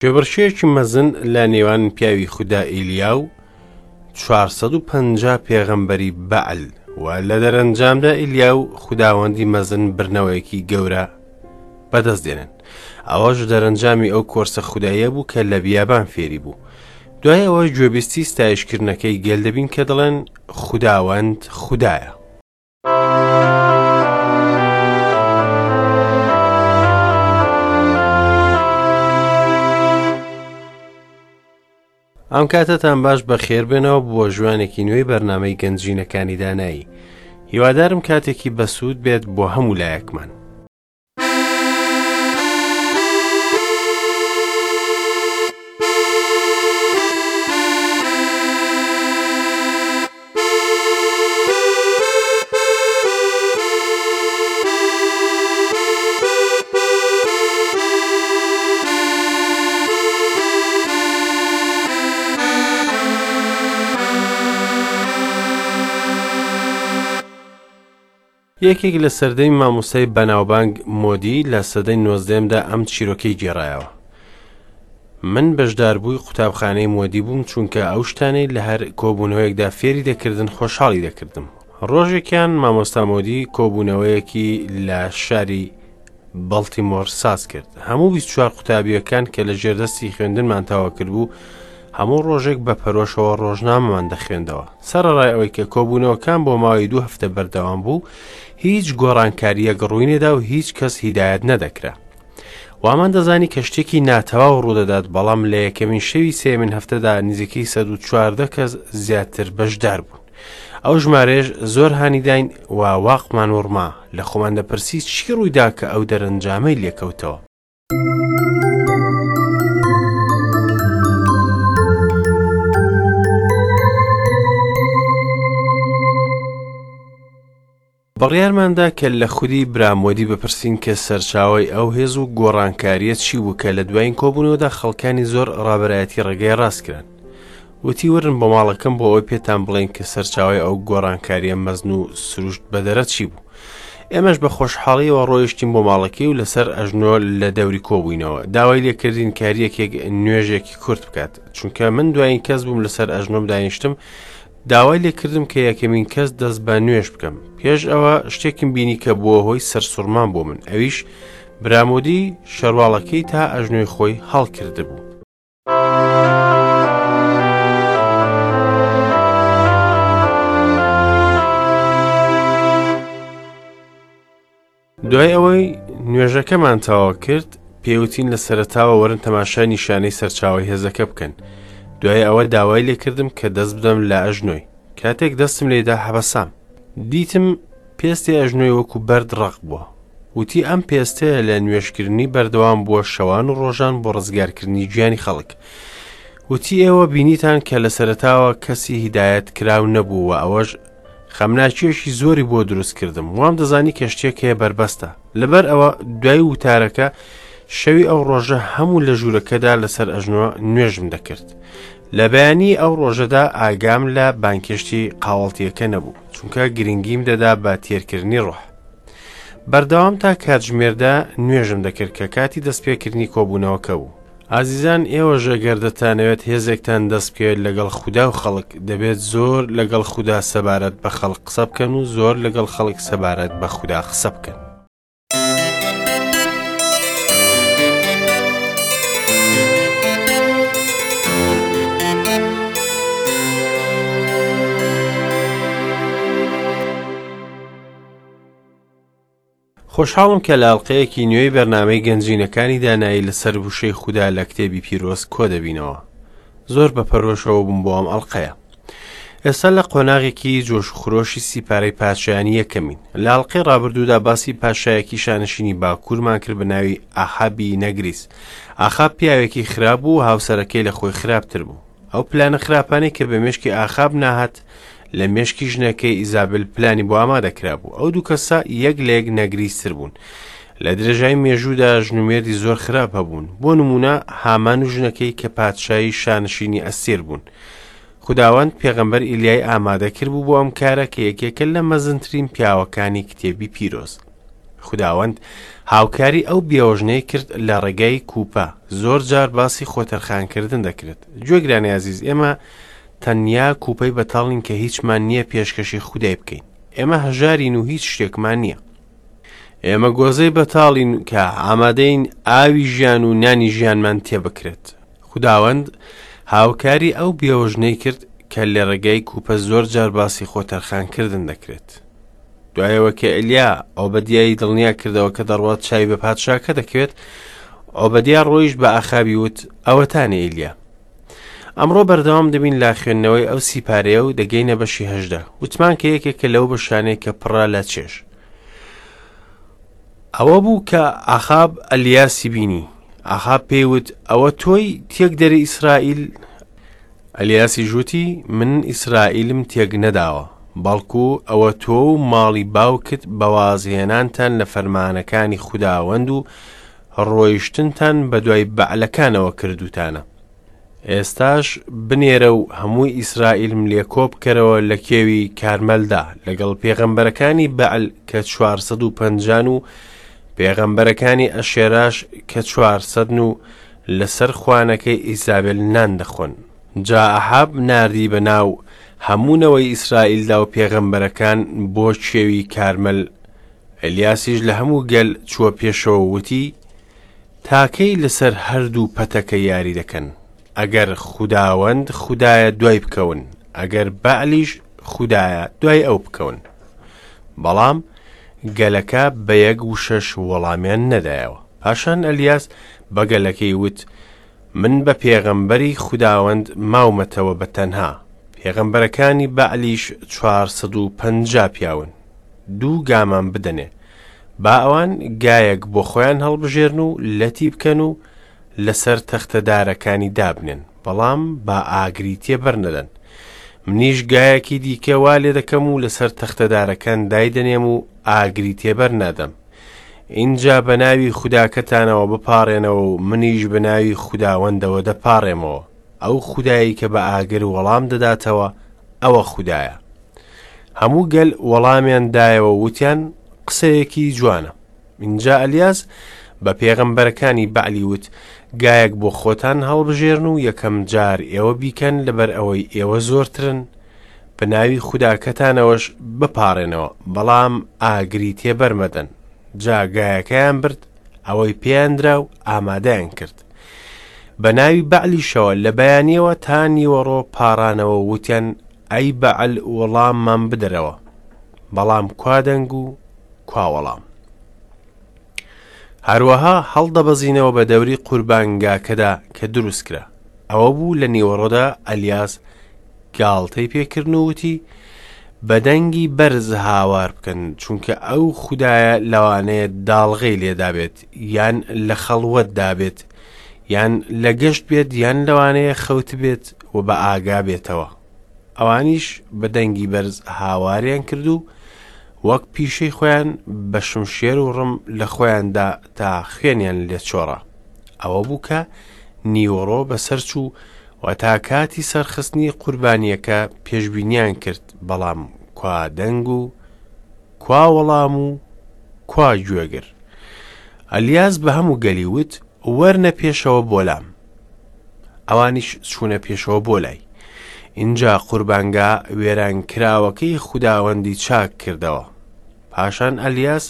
کێبڕکێیەکی مەزن لە نێوان پیاوی خودا ئیلیا و 450 پێغەمبەری بەعل و لە دەرەنجامدا ئیلیا و خوداوەندی مەزن برنەوەیەکی گەورە بەدەست دێنن ئەوەش دەرەنجامی ئەو کۆرسە خوداییە بوو کە لە بیابان فێری بوو دوای ئەوە گوێبیستی ستایشکردنەکەی گەل دەبین کە دەڵێن خوداوەند خودایە. ئەم کاتەتان باش بەخێر بێنەوە بۆ ژوانێکی نوێی بەرنامەی گەنجینەکانی دانایی هیوادارم کاتێکی بەسوود بێت بۆ هەموو لایەکمان. یەکێک لە سەردەمی مامۆستای بەناوبانگ مۆدی لە سەدەی نۆزدەیەمدا ئەم چیرۆکەی گێڕایەوە. من بەشداربووی قوتابخانەی مۆدی بووم چونکە ئەو شتانەی لە هەر کۆبوونەوەیەکدا فێری دەکردن خۆشحاڵی دەکردم. ڕۆژێکیان مامۆستا مۆدی کۆبوونەوەیەکی لە شاری بەڵتیمۆر ساز کرد. هەموو 24 قوتابییەکان کە لە ژێردەستی خوێندنمان تەواو کردبوو، هەموو ڕۆژێک بە پەرۆشەوە ڕۆژنامەمان دەخوێندەوە. سەرەڕای ئەوەی کە کۆبوونەوەکان بۆ ماوەی دوو هەفتە بەردەوام بوو، هیچ گۆڕانکارییەک ڕووی نەدا و هیچ کەس هیدایەت نەدەکرا. وامان دەزانی کە شتێکی ناتەواو ڕوودەدات، بەڵام لە یەکەمین شەوی سێیەمین هەفتەدا نزیکەی 114 کەس زیاتر بەشدار بوون. ئەو ژمارەیەش زۆر هانی داین و واقمان وڕما، لە خۆمان دەپرسی چی ڕوویدا کە ئەو دەرەنجامەی لێکەوتەوە. بڕیارماندا کە لە خودی برامۆدی بپرسین کە سەرچاوەی ئەو هێز و گۆڕانکارییە چی بوو کە لە دوایین کۆبوونەوەدا خەڵکانی زۆر ڕابەرایەتی ڕێگای ڕاست کران. وتی ورن بۆ ماڵەکەم بۆ ئەوەی پێتان بڵێین کە سەرچاوەی ئەو گۆڕانکارییە مەزن و سروشت بەدەرە چی بوو. ئێمەش بە خۆشحاڵیەوە ڕۆیشتین بۆ ماڵەکەی و لەسەر ئەژنۆ لە دەوری کۆبووینەوە. داوای لێکردین کە هەریەکێک نوێژێکی کورت بکات. چونکە من دوایین کەس بووم لەسەر ئەژنۆم دانیشتم، داوای لێکردم کە یەکەمین کەس دەست بە نوێژ بکەم. پێش ئەوە شتێکم بینی کە بووە هۆی سەرسوڕمان بۆ من، ئەویش برامۆدی شەرواڵەکەی تا ئەژنۆی خۆی هەڵکردبوو. دوای ئەوەی نوێژەکەمان تەواو کرد پێوتین لە سەرەتاوە وەرن تەماشای نیشانەی سەرچاوەی هێزەکە بکەن دوای ئەوە داوای لێکردم کە دەست بدەم لە ئەژنۆی کاتێک دەستم لێدا حەبەسام دیتم پێستی ئەژنۆی وەکو بەرد ڕەق بووە وتی ئەم پێستەیە لە نوێژکردنی بەردەوام بووە شەوان و ڕۆژان بۆ ڕزگارکردنی گیانی خەڵک وتی ئێوە بینیتان کە لە سەرەتاوە کەسی هیدایەت کراو نەبوو و ئەوەش خەمناکییەکی زۆری بۆ دروست کردم وام دەزانی کە شتێک هەیە بەربەستە لەبەر ئەوە دوای وتارەکە شەوی ئەو ڕۆژە هەموو لە ژوورەکەدا لەسەر ئەژنۆ نوێژم دەکرد لە بەیانی ئەو ڕۆژەدا ئاگام لە بانکێشتی قاوەڵتیەکە نەبوو چونکە گرنگیم دەدا بە تێرکردنی ڕۆح بەردەوام تا کاتژمێردا نوێژم دەکرد کە کاتی دەستپێکردنی کۆبوونەوەکە بوو ئازیزان ئێوەش ئەگەر دەتانەوێت هێزێکتان دەست بکەوێت لەگەڵ خودا و خەڵک دەبێت زۆر لەگەڵ خودا سەبارەت بە خەڵک قسە بکەن و زۆر لەگەڵ خەڵک سەبارەت بە خودا قسە بکەن. خۆشحاڵم کە لە ئەڵقەیەکی نوێی بەرنامەی گەنجینەکانی دانایی لەسەر وشەی خودا لە کتێبی پیرۆز کۆ دەبینەوە. زۆر بە پەرۆشەوە بووم بۆ ئەم ئەڵقەیە. ئێستا لە قۆناغێکی جۆش و خرۆشی سیپارەی پادشایانی یەکەمین. لە ئەڵقەی ڕابردوودا باسی پادشایەکی شانشینی باکوورمان کرد بە ناوی ئاحابی نەگریس. ئاخاب پیاوێکی خراپ بوو و هاوسەرەکەی لە خۆی خراپتر بوو. ئەو پلانە خراپانەی کە بە مێشکی ئاخاب ناهات لە مێشکی ژنەکەی ئیزابل پلانی بۆ ئامادە کرابوو ئەو دوو کەسە یەک لە یەک نەگریستر بوون لە درێژای مێژوودا ژن و مێردی زۆر خراپ هەبوون بۆ نمونە هامان و ژنەکەی کە پادشایی شانشینی ئەستێر بوون خداوەند پێغەمبەر ئیلیای ئامادە کرد بوو بۆ ئەم کارە کە یەکێکە لە مەزنترین پیاوەکانی کتێبی پیرۆز. خوداوەند هاوکاری ئەو بێوەژنەی کرد لە ڕێگای کوپە. زۆر جار باسی خۆتەرخانکردن دەکرێت. گوێگرانی ئازیز، ئێمە تەنیا کوپەی بەتاڵین کە هیچمان نییە پێشکەشی خودای بکەین. ئێمە هەژارین و هیچ شتێکمان نییە. ئێمە گۆزەی بەتاڵین کە ئامادەین ئاوی ژیان و نانی ژیانمان تێبکرێت. خوداوەند هاوکاری ئەو بێوەژنەی کرد کە لە ڕێگای کوپە زۆر جار باسی خۆتەرخانکردن دەکرێت. دوایەوە کە ئەلیا ئۆبەدیای دڵنیا کردەوە کە دەڕوات چاوی بە پادشاکە دەکەوێت، ئۆبەدیا ڕۆیشت بە ئاخابی وت، ئەوەتانێ ئیلیا. ئەمڕۆ بەردەوام دەبین لە خوێندنەوەی ئەو سیپارەیە و دەگەینە بەشی 18. وتمان کە یەکێکە لەو بەشانەی کە پڕە لە چێژ. ئەوە بوو کە ئاخاب ئەلیاسی بینی. ئاخاب پێی وت، ئەوە تۆی تێکدەری ئیسرائیل؟ ئەلیاسیش وتی، من ئیسرائیلم تێک نەداوە، بەڵکو ئەوە تۆ و ماڵی باوکت بە وازهێنانتان لە فەرمانەکانی خوداوەند و ڕۆیشتنتان بەدوای بەعلەکانەوە کردووتانە. ئێستاش بنێرە و هەموو ئیسرائیلم لێ کۆبکەرەوە لە کێوی کارمەلدا لەگەڵ پێغەمبەرەکانی بەعل کە 450 و پێغەمبەرەکانی ئەشێراش کە 400 و لەسەر خوانەکەی ئیزابێل نان دەخۆن. جا ئەحاب ناردی بە ناو هەموو نەوەی ئیسرائیلدا و پێغەمبەرەکان بۆ کێوی کارمەل. ئەلیاسیش لە هەموو گەل چووە پێشەوە و وتی، تا کەی لەسەر هەردوو پەتەکە یاری دەکەن؟ ئەگەر خوداوەند خودایە دوای بکەون، ئەگەر بەعلیش خودایە دوای ئەو بکەون. بەڵام گەلەکە بە یەک وشەش وەڵامیان نەدایەوە. پاشان ئەلیاس بە گەلەکەی وت، من بە پێغەمبەری خوداوەند ماومەتەوە بە تەنها، پێغەمبەرەکانی بەعلیش 450 پیاون. دوو گامان بدەنێ. با ئەوان گایەک بۆ خۆیان هەڵبژێرن و لەتی بکەن و لەسەر تەختە دارەکانی دابنێن، بەڵام با ئاگری تێبەر نەدەن. منیش گایەکی دیکە وا لێ دەکەم و لەسەر تەختە دارەکان دایدەنێم و ئاگری تێبەر نادەم. ئینجا بە ناوی خوداکەتانەوە بپاڕێنەوە و منیش بە ناوی خوداوەندەوە دەپاڕێمەوە. ئەو خودایەی کە بە ئاگر وەڵام دەداتەوە، ئەوە خودایە. هەموو گەل وەڵامیان دایەوە وتیان قسەیەکی جوانە. ئینجا ئەلیاس بە پێغەمبەرەکانی بەعلی وت، گایەک بۆ خۆتان هەڵبژێرن و یەکەم جار ئێوە بیکەن لەبەر ئەوەی ئێوە زۆرترن، بە ناوی خوداکەتانەوەش بپاڕێنەوە، بەڵام ئاگری تێبەر مەدەن. جا گایەکەیان برد، ئەوەی پێیان درا و ئامادەیان کرد. بە ناوی بەعلیشەوە لە بەیانیەوە تا نیوەڕۆ پاڕانەوە و وتیان ئەی بەعل وەڵاممان بدەرەوە. بەڵام کوا دەنگ و کوا وەڵام؟ هەروەها هەڵدەبەزینەوە بە دەوری قوربانگاکەدا کە دروست کرا. ئەوە بوو لە نیوەڕۆدا ئەلیاس گاڵتەی پێکردن و وتی، بە دەنگی بەرز هاوار بکەن، چونکە ئەو خودایە لەوانەیە داڵغەی لێدابێت، یان لە خەڵوەتدا بێت، یان لە گەشت بێت، یان لەوانەیە خەوتبێت و بە ئاگا بێتەوە. ئەوانیش بە دەنگی بەرز هاواریان کرد و وەک پیشەی خۆیان بە شمشێر و ڕم لە خۆیاندا تا خوێنیان لێ چۆڕا. ئەوە بوو کە نیوەڕۆ بەسەر چوو و تا کاتی سەرخستنی قوربانییەکە پێشبینیان کرد، بەڵام کوا دەنگ و کوا وەڵام و کوا گوێگر؟ ئەلیاس بە هەموو گەلی وت، وەرنە پێشەوە بۆ لام. ئەوانیش چوونە پێشەوە بۆ لای. ئینجا قوربانگا وێرانکراوەکەی خوداوەندی چاک کردەوە. پاشان ئەلیاس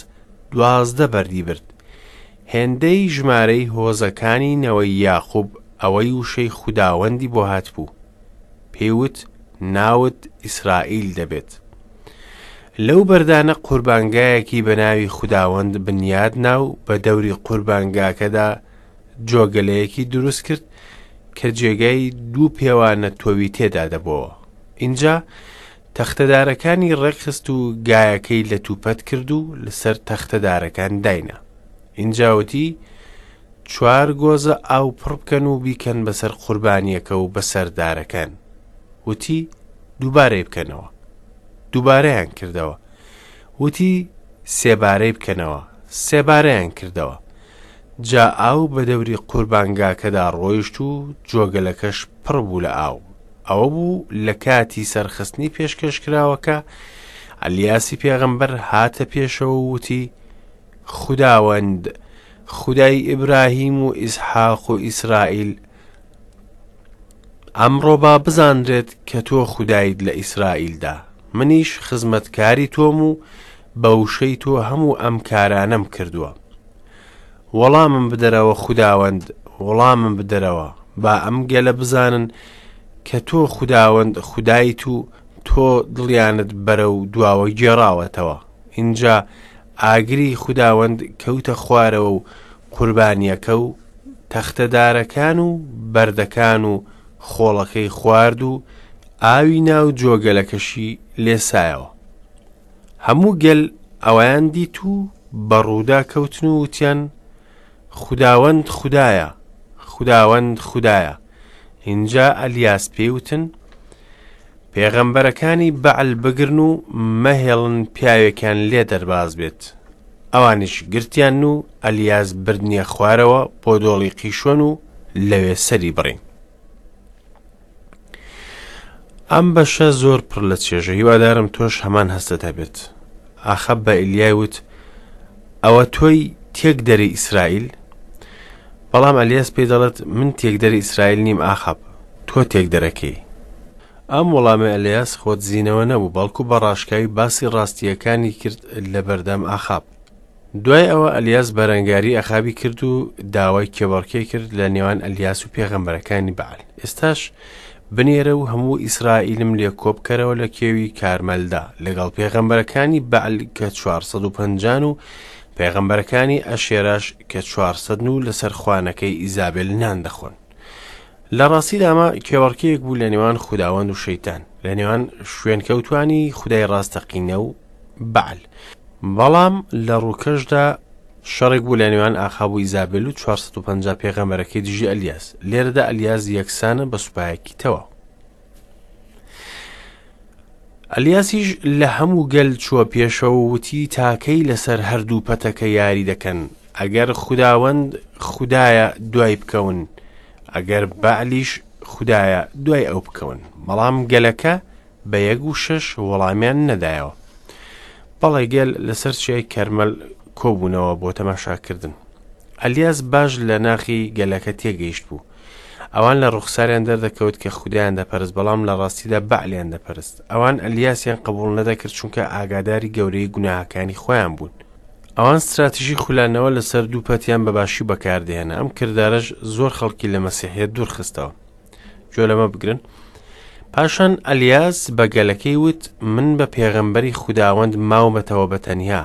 12 بەردی برد، هێندەی ژمارەی هۆزەکانی نەوەی یاقوب ئەوەی وشەی خوداوەندی بۆ هاتبوو. پێی وت، ناوت ئیسرائیل دەبێت. لەو بەردانە قوربانگایەکی بە ناوی خوداوەند بنیاد نا و بە دەوری قوربانگاکەدا جۆگەلەیەکی دروست کرد کە جێگای دوو پێوانە تۆوی تێدا دەبۆوە. ئینجا تەختەدارەکانی ڕێکخست و گایەکەی لە توپەت کرد و لەسەر تەختەدارەکان داینا. ئینجا وتی، چوار گۆزە ئاو پڕ بکەن و بیکەن بەسەر قوربانییەکە و بەسەر دارەکان. وتی، دووبارەی بکەنەوە. دووبارەیان کردەوە. وتی، سێبارەی بکەنەوە. سێبارەیان کردەوە. جا ئاو بە دەوری قوربانگاکەدا ڕۆیشت و جۆگەلەکەش پڕ بوو لە ئاو. ئەوە بوو لە کاتی سەرخستنی پێشکەشکراوەکە، ئەلیاسی پێغەمبەر هاتە پێشەوە و وتی، خوداوەند، خودای ئیبراهیم و ئیسحاق و ئیسرائیل، ئەمڕۆ با بزانرێت کە تۆ خودایت لە ئیسرائیلدا، منیش خزمەتکاری تۆم و بە وشەی تۆ هەموو ئەم کارانەم کردووە. وەڵامم بدەرەوە خوداوەند، وەڵامم بدەرەوە، با ئەم گەلە بزانن کە تۆ خوداوەند خودایت و تۆ دڵیانت بەرەو دواوە گێڕاوەتەوە. ئینجا ئاگری خوداوەند کەوتە خوارەوە و قوربانییەکە و تەختەدارەکان و بەردەکان و خۆڵەکەی خوارد و ئاوی ناو جۆگەلەکەشی لێسایەوە. هەموو گەل ئەوەیان دیت و بە ڕوودا کەوتن و وتیان، خوداوەند خودایە، خوداوەند خودایە. ئینجا ئەلیاس پێی وتن، پێغەمبەرەکانی بەعل بگرن و مەهێڵن پیاوێکیان لێ دەرباز بێت. ئەوانیش گرتیان و ئەلیاس بردنیە خوارەوە بۆ دۆڵی قیشۆن و لەوێ سەری بڕین. ئەم بەشە زۆر پڕ لە چێژە، هیوادارم تۆش هەمان هەستت هەبێت. ئاخاب بە ئیلیای وت، ئەوە تۆی تێکدەری ئیسرائیل؟ بەڵام ئەلیاس پێی دەڵێت، من تێکدەری ئیسرائیل نیم ئاخاب، تۆ تێکدەرەکەی. ئەم وەڵامەی ئەلیاس خۆدزینەوە نەبوو، بەڵکو بە ڕاشکاوی باسی ڕاستییەکانی کرد لە بەردەم ئاخاب. دوای ئەوە ئەلیاس بەرەنگاری ئەخابی کرد و داوای کێبەڕکێی کرد لە نێوان ئەلیاس و پێغەمبەرەکانی بەعل. ئێستاش بنێرە و هەموو ئیسرائیلم لێ کۆبکەرەوە لە کێوی کارمەلدا لەگەڵ پێغەمبەرەکانی بەعل کە 450 و پێغەمبەرەکانی ئەشێراش کە 400 و لەسەر خوانەکەی ئیزابێل نان دەخۆن. لە ڕاستیدا ئەمە کێبەڕکێیەک بوو لە نێوان خوداوەند و شەیتان، لە نێوان شوێنکەوتوانی خودای ڕاستەقینە و بەعل. بەڵام لە ڕووکەشدا شەڕێک بوو لە نێوان ئاخاب و ئیزابێل و 450 پێغەمبەرەکەی دژی ئەلیاس. لێرەدا ئەلیاس یەکسانە بە سوپایەکی تەواو. ئەلیاسیش لە هەموو گەل چووە پێشەوە و وتی تاکەی لەسەر هەردوو پەتەکە یاری دەکەن، ئەگەر خوداوەند خودایە دوای بکەون، ئەگەر بەعلیش خودایە دوای ئەو بکەون. بەڵام گەلەکە بە یەک وشەش وەڵامیان نەدایەوە. بەڵێ گەل لەسەر چیای کەرمەل کۆبوونەوە بۆ تەماشاکردن. ئەلیاس باش لە ناخی گەلەکە تێگەیشت بوو. ئەوان لە ڕوخساریان دەردەکەوت کە خودایان دەپەرست، بەڵام لە ڕاستیدا بەعلیان دەپەرست. ئەوان ئەلیاسیان قبوڵ نەدەکرد چونکە ئاگاداری گەورەی گوناهەکانی خۆیان بوون. ئەوان ستراتیژی خولانەوە لەسەر دوو پەتیان بە باشی بەکاردەهێنا، ئەم کردارەش زۆر خەڵکی لە مەسیحیەت دوورخستەوە. گوێ لەمە بگرن. پاشان ئەلیاس بە گەلەکەی وت، من بە پێغەمبەری خوداوەند ماومەتەوە بە تەنیا.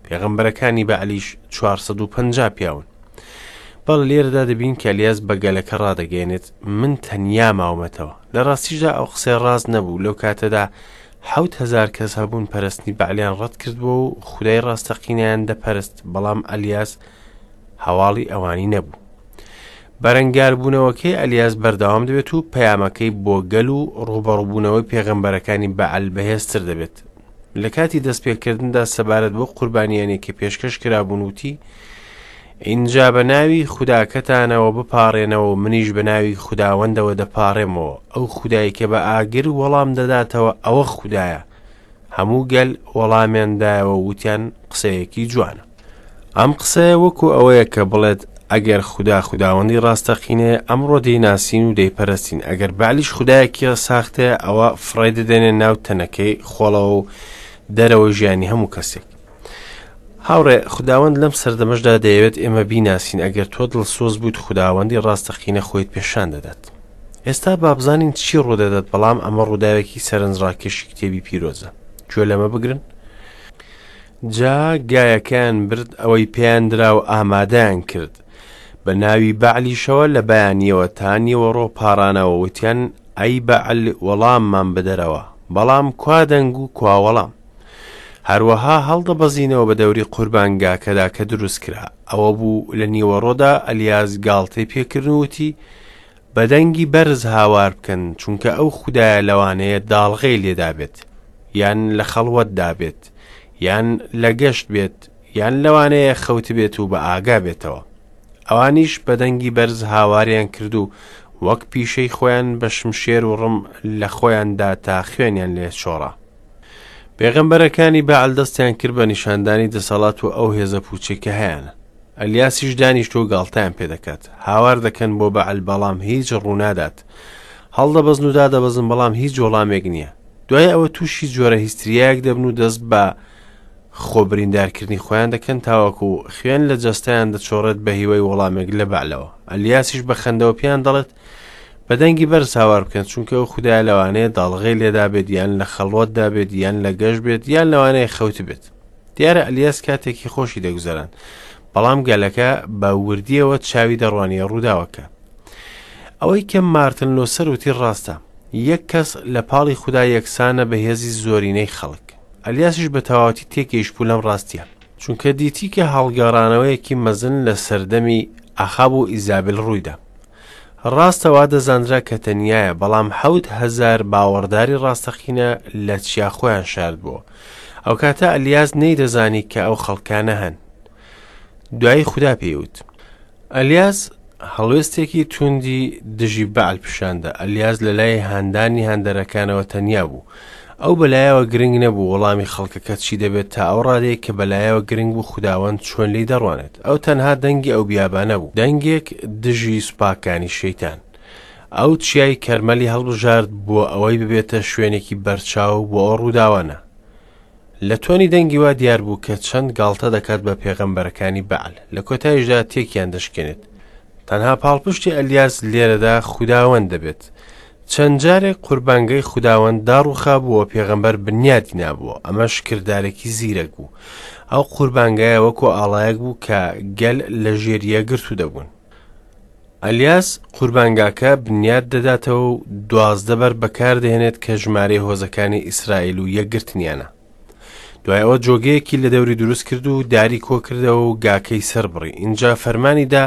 پێغەمبەرەکانی بەعلیش 450 پیاون. بەڵێ لێرەدا دەبین کە ئەلیاس بە گەلەکە ڕادەگەیەنێت من تەنیا ماومەتەوە. لە ڕاستیشدا ئەو قسەیە ڕاست نەبوو. لەو کاتەدا 7000 کەس هەبوون پەرستنی بەعلیان ڕەت کردبووە و خودای ڕاستەقینەیان دەپەرست، بەڵام ئەلیاس هەواڵی ئەوانی نەبوو. بەرەنگاربوونەوەکەی ئەلیاس بەردەوام دەبێت و پەیامەکەی بۆ گەل و ڕووبەڕووبوونەوەی پێغەمبەرەکانی بەعل بەهێزتر دەبێت. لە کاتی دەستپێکردندا سەبارەت بۆ قوربانیانێک کە پێشکەش کرابوون وتی، ئینجا بە ناوی خوداکەتانەوە بپاڕێنەوە و منیش بە ناوی خوداوەندەوە دەپاڕێمەوە، ئەو خودای کە بە ئاگر وەڵام دەداتەوە ئەوە خودایە. هەموو گەل وەڵامیان دایەوە و وتیان قسەیەکی جوانە. ئەم قسەیە وەکو ئەوەیە کە بڵێت ئەگەر خودا خوداوەندی ڕاستەقینەیە ئەمڕۆ دەیناسین و دەیپەرستین، ئەگەر بەعلیش خودایەکی ساختەیە ئەوە فڕێی دەدەینە ناو تەنەکەی خۆڵەوە و دەرەوەی ژیانی هەموو کەسێک. هاوڕێ، خوداوەند لەم سەردەمەشدا دەیەوێت ئێمە بیناسین، ئەگەر تۆ دڵسۆز بوویت خوداوەندی ڕاستەقینە خۆیت پێشان دەدات. ئێستا با بزانین چی ڕوودەدات، بەڵام ئەمە ڕووداوێکی سەرنجڕاکێشی کتێبی پیرۆزە. گوێ لەمە بگرن. جا گایەکەیان برد ئەوەی پێیان درا و ئامادەیان کرد. بە ناوی بەعلیشەوە لە بەیانییەوە تا نیوەڕۆ پاڕانەوە وتیان ئەی بەعل وەڵاممان بدەرەوە. بەڵام کوا دەنگ و کوا وەڵام؟ هەروەها هەڵدەبەزینەوە بە دەوری قوربانگاکەدا کە دروست کرا. ئەوە بوو لە نیوەڕۆدا ئەلیاس گاڵتەی پێکردن و وتی، بە دەنگی بەرز هاوار بکەن، چونکە ئەو خودایە لەوانەیە داڵغەی لێدابێت، یان لە خەڵوەتدا بێت، یان لە گەشت بێت، یان لەوانەیە خەوتبێت و بە ئاگا بێتەوە. ئەوانیش بە دەنگی بەرز هاواریان کرد و وەک پیشەی خۆیان بە شمشێر و ڕم لە خۆیان دا تا خوێنیان لێ چۆڕا. پێغەمبەرەکانی بەعل دەستیان کرد بە نیشاندانی دەسەڵات و ئەو هێزە پووچەی کە هەیانە. ئەلیاسیش دانیشتووە و گاڵتەیان پێ دەکات. هاوار دەکەن بۆ بەعل بەڵام هیچ ڕوونادات. هەڵدەبەزن و دادەبەزن بەڵام هیچ وەڵامێک نییە. دوای ئەوە تووشی جۆرە هیستریایەک دەبن و دەست بە خۆ بریندارکردنی خۆیان دەکەن تاوەکو خوێن لە جەستەیان دەچۆڕێت بە هیوای وەڵامێک لە بەعلەوە. ئەلیاسیش بە خەندەوە پێیان دەڵێت بە دەنگی بەرز هاوار بکەن چونکە ئەو خودایە لەوانەیە داڵغەی لێدابێت یان لە خەڵوەتدا بێت یان لە گەشت بێت یان لەوانەیە خەوتبێت. دیارە ئەلیاس کاتێکی خۆشی دەگوزەراند بەڵام گەلەکە بە وردیەوە چاوی دەڕوانیە ڕووداوەکە. ئەوەی کە مارتن لۆسەر وتی ڕاستە، یەک کەس لە پاڵی خودا یەکسانە بە هێزی زۆرینەی خەڵک. ئەلیاسیش بە تەواوەتی تێگەیشتبوو لەم ڕاستیە، چونکە دیتی کە هەڵگەڕانەوەیەکی مەزن لە سەردەمی ئەخاب و ئیزابل ڕوویدا. ڕاستە وا دەزانرا کە تەنیایە، بەڵام 7000 باوەڕداری ڕاستەقینە لە چیا خۆیان شاردبووە. ئەوکاتە ئەلیاس نەیدەزانی کە ئەو خەڵکانە هەن. دوایی خودا پێی وت. ئەلیاس هەڵوێستێکی توندی دژی بەعل پیشاندا. ئەلیاس لە لای هاندانی هاندەرەکانەوە تەنیا بوو. ئەو بەلایەوە گرنگ نەبوو وەڵامی خەڵکەکە چی دەبێت تا ئەو ڕادەیە کە بەلایەوە گرنگ بوو خوداوەند چۆن لێی دەڕوانێت. ئەو تەنها دەنگی ئەو بیابانە بوو، دەنگێک دژی سوپاکانی شەیتان. ئەو چیای کەرمەلی هەڵبژارد بۆ ئەوەی ببێتە شوێنێکی بەرچاو بۆ ئەو ڕووداوانە. لە تۆنی دەنگی وا دیار بوو کە چەند گاڵتە دەکات بە پێغەمبەرەکانی بەعل، لە کۆتاییشدا تێکیان دەشکێنێت. تەنها پاڵپشتی ئەلیاس لێرەدا خوداوەند دەبێت. چەند جارێک قوربانگەی خوداوەند داڕووخابوو و پێغەمبەر بنیادی نابووە، ئەمەش کردارێکی زیرەک بوو. ئەو قوربانگایە وەکو ئاڵایەک بوو کە گەل لە ژێر یەکگرتوو دەبوون. ئەلیاس قوربانگاکە بنیاد دەداتەوە و 12 بەر بەکاردەهێنێت کە ژمارەی هۆزەکانی ئیسرائیل و یەکگرتنیانە. دوای ئەوە جۆگەیەکی لە دەوری دروست کرد و داری کۆکردەوە و گاکەی سەربڕی. ئینجا فەرمانی دا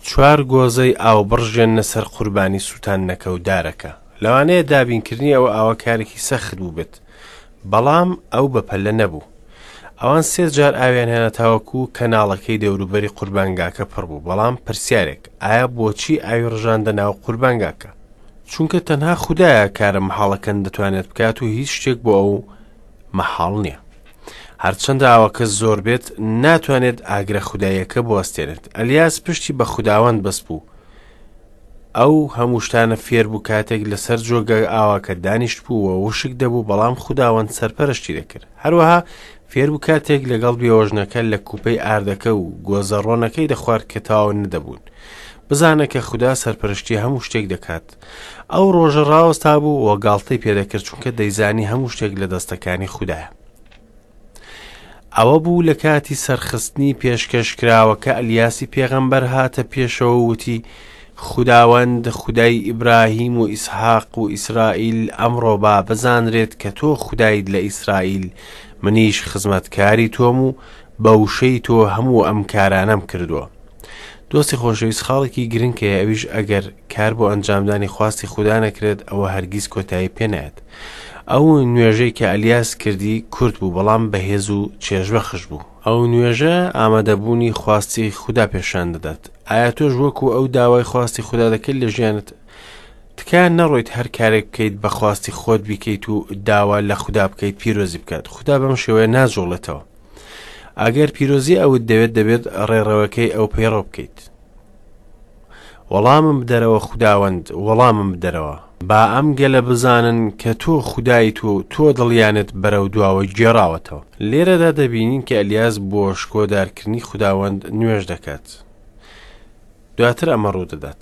چوار گۆزەی ئاو بڕژێننە سەر قوربانی سووتاندنەکە و دارەکە. لەوانەیە دابینکردنی ئەو ئاوە کارێکی سەخت بووبێت، بەڵام ئەو بەپەلە نەبوو. ئەوان سێ جار ئاویان هێنا تاوەکو کەناڵەکەی دەوروبەری قوربانگاکە پڕ بوو. بەڵام پرسیارێک، ئایا بۆچی ئاوی ڕژاندە ناو قوربانگاکە؟ چونکە تەنها خودایە کارە مەحاڵەکان دەتوانێت بکات و هیچ شتێک بۆ ئەو مەحاڵ نییە. هەرچەندە ئاوەکە زۆر بێت ناتوانێت ئاگرە خوداییەکە بوەستێنێت. ئەلیاس پشتی بە خوداوەند بەست بوو. ئەو هەموو شتانە فێر بوو کاتێک لەسەر جۆگە ئاواکە دانیشت بوو و وشک دەبوو بەڵام خوداوەند سەرپەرشتی دەکرد. هەروەها فێر بوو کاتێک لەگەڵ بێوەژنەکە لە کوپەی ئاردەکە و گۆزە ڕۆنەکەی دەخوارد کە تەواو نەدەبوون. بزانە کە خودا سەرپەرشتی هەموو شتێک دەکات. ئەو ڕۆژە ڕاوەستا بوو و گاڵتەی پێدەکرد چونکە دەیزانی هەموو شتێک لە دەستەکانی خودایە. ئەوە بوو لە کاتی سەرخستنی پێشکەشکراوەکە ئەلیاسی پێغەمبەر هاتە پێشەوە و وتی، خوداوەند خودای ئیبراهیم و ئیسحاق و ئیسرائیل ئەمڕۆ با بزانرێت کە تۆ خودایت لە ئیسرائیل، منیش خزمەتکاری تۆم و بە وشەی تۆ هەموو ئەم کارانەم کردووە. دۆستی خۆشەویست خاڵێکی گرنگ هەیە ئەویش ئەگەر کار بۆ ئەنجامدانی خواستی خودا نەکرێت ئەوە هەرگیز کۆتایی پێ نایەت. ئەو نوێژەی کە ئەلیاس کردی کورت بوو بەڵام بەهێز و چێژبەخش بوو. ئەو نوێژە ئامادەبوونی خواستی خودا پێشان دەدات. ئایا تۆش وەکو ئەو داوای خواستی خودا دەکەیت لە ژیانت؟ تکایە نەڕۆیت هەر کارێک بکەیت بە خواستی خۆت بیکەیت و داوا لە خودا بکەیت پیرۆزی بکات. خودا بەم شێوەیە ناجوڵێتەوە. ئەگەر پیرۆزی ئەوت دەوێت دەبێت ڕێڕەوەکەی ئەو پەیڕەو بکەیت. وەڵامم بدەرەوە خوداوەند، وەڵامم بدەرەوە. با ئەم گەلە بزانن کە تۆ خودایت و تۆ دڵیانت بەرەو دواوە گێڕاوەتەوە. لێرەدا دەبینین کە ئەلیاس بۆ شکۆدارکردنی خوداوەند نوێژ دەکات. دواتر ئەمە ڕوودەدات.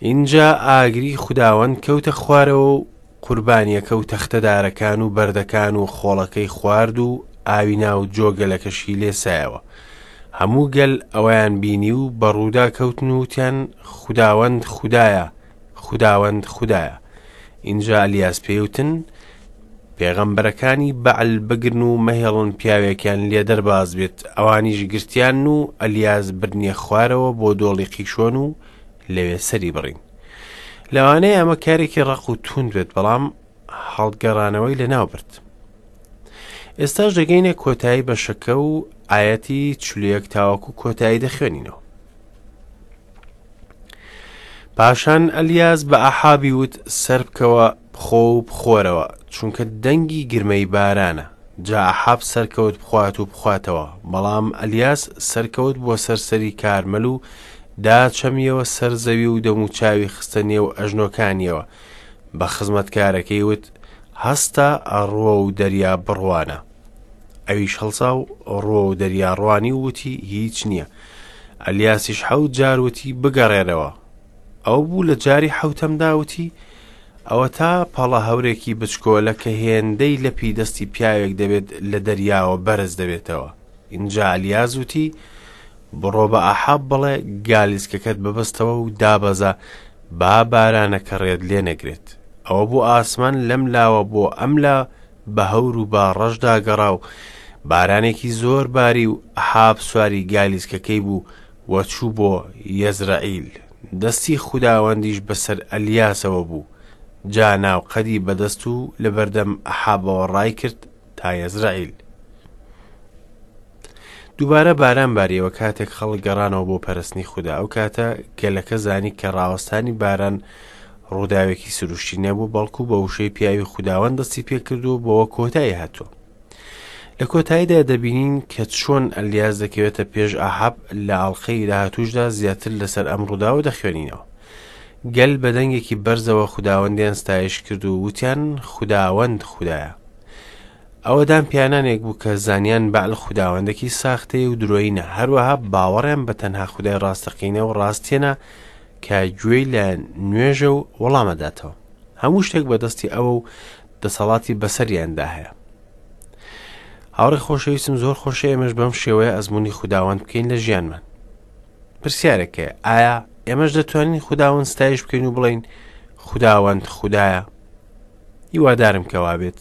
ئینجا ئاگری خوداوەند کەوتە خوارەوە و قوربانییەکە و تەختە دارەکان و بەردەکان و خۆڵەکەی خوارد و ئاوی ناو جۆگەلەکەشی لێسایەوە. هەموو گەل ئەوەیان بینی و بە ڕوودا کەوتن و وتیان، خوداوەند خودایە، خوداوەند خودایە. ئینجا ئەلیاس پێی وتن، پێغەمبەرەکانی بەعل بگرن و مەهێڵن پیاوێکیان لێ دەرباز بێت. ئەوانیش گرتیان و ئەلیاس بردنیە خوارەوە بۆ دۆڵی قیشۆن و لەوێ سەری بڕین. لەوانەیە ئەمە کارێکی ڕەق و توند بێت بەڵام هەڵگەڕانەوەی لەناو برد. ئێستاش دەگەینە کۆتایی بەشەکە و ئایەتی چلویەک تاوەکو کۆتایی دەخوێنینەوە. پاشان ئەلیاس بە ئەحابی وت سەربکەوە بخۆ و بخۆرەوە، چونکە دەنگی گرمەی بارانە. جا ئەحاب سەرکەوت بخوات و بخواتەوە، بەڵام ئەلیاس سەرکەوت بۆ سەر سەری کارمەل و داچەمیەوە سەر زەوی و دەموچاوی خستە نێو ئەژنۆکانیەوە، بە خزمەتکارەکەی وت، هەستە ڕووە و دەریا بڕوانە. ئەویش هەڵسا و ڕووە و دەریا ڕوانی و وتی، هیچ نییە. ئەلیاسیش حەوت جار وتی، بگەڕێرەوە. ئەو بوو لە جاری حەوتەمدا وتی، ئەوەتا پەڵە هەورێکی بچکۆلە کە هێندەی لەپی دەستی پیاوێک دەبێت لە دەریاوە بەرز دەبێتەوە. ئینجا ئەلیاس وتی، بڕۆ بە ئەحاب بڵێ گالیسکەکەت ببەستەوە و دابەزە با بارانەکە ڕێت لێ نەگرێت. ئەوە بوو ئاسمان لەم لاوە بۆ ئەم لا بە هەور و با ڕەشدا گەڕا و بارانێکی زۆر باری و ئەحاب سواری گالیسکەکەی بوو و چوو بۆ یەزرەعیل. دەستی خوداوەندیش بەسەر ئەلیاسەوە بوو، جا ناوقەدی بەدەست و لەبەردەم ئەحابەوە ڕایکرد تا یەزرەعیل. دووبارە باران باریەوە کاتێک خەڵک گەڕانەوە بۆ پەرستنی خودا. ئەو کاتە گەلەکە زانی کە ڕاوەستانی باران ڕووداوێکی سروشتی نەبوو، بەڵکو بە وشەی پیاوی خوداوەند دەستی پێکردووە بەوە کۆتایی هاتووە. لە کۆتاییدا دەبینین کە چۆن ئەلیاس دەکەوێتە پێش ئاحاب لە ئاڵقەی داهاتووشدا زیاتر لەسەر ئەم ڕووداوە دەخوێنینەوە. گەل بە دەنگێکی بەرزەوە خوداوەندیان ستایش کرد و وتیان خوداوەند خودایە. ئەوە دان پیانانێک بوو کە زانیان بەعل خوداوەندێکی ساختەیە و درۆیینە، هەروەها باوەڕیان بە تەنها خودای ڕاستەقینە و ڕاستێنە کە گوێی لە نوێژە و وەڵامەداتەوە. هەموو شتێک بەدەستی ئەوە و دەسەڵاتی بەسەریاندا هەیە. هاوڕێ خۆشەویستم زۆر خۆشە ئێمەش بەم شێوەیە ئەزمموی خوداوەند بکەین لە ژیانمان پرسیارێک هەیە ئایا ئێمەش دەتوانین خوداوەند ستایش بکەین و بڵین خوداوەند خودایە هیوادارم کەوا بێت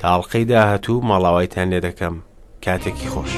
تاڵقەی داهاتوو ماڵاوایتان لێ دەکەم کاتێکی خۆش.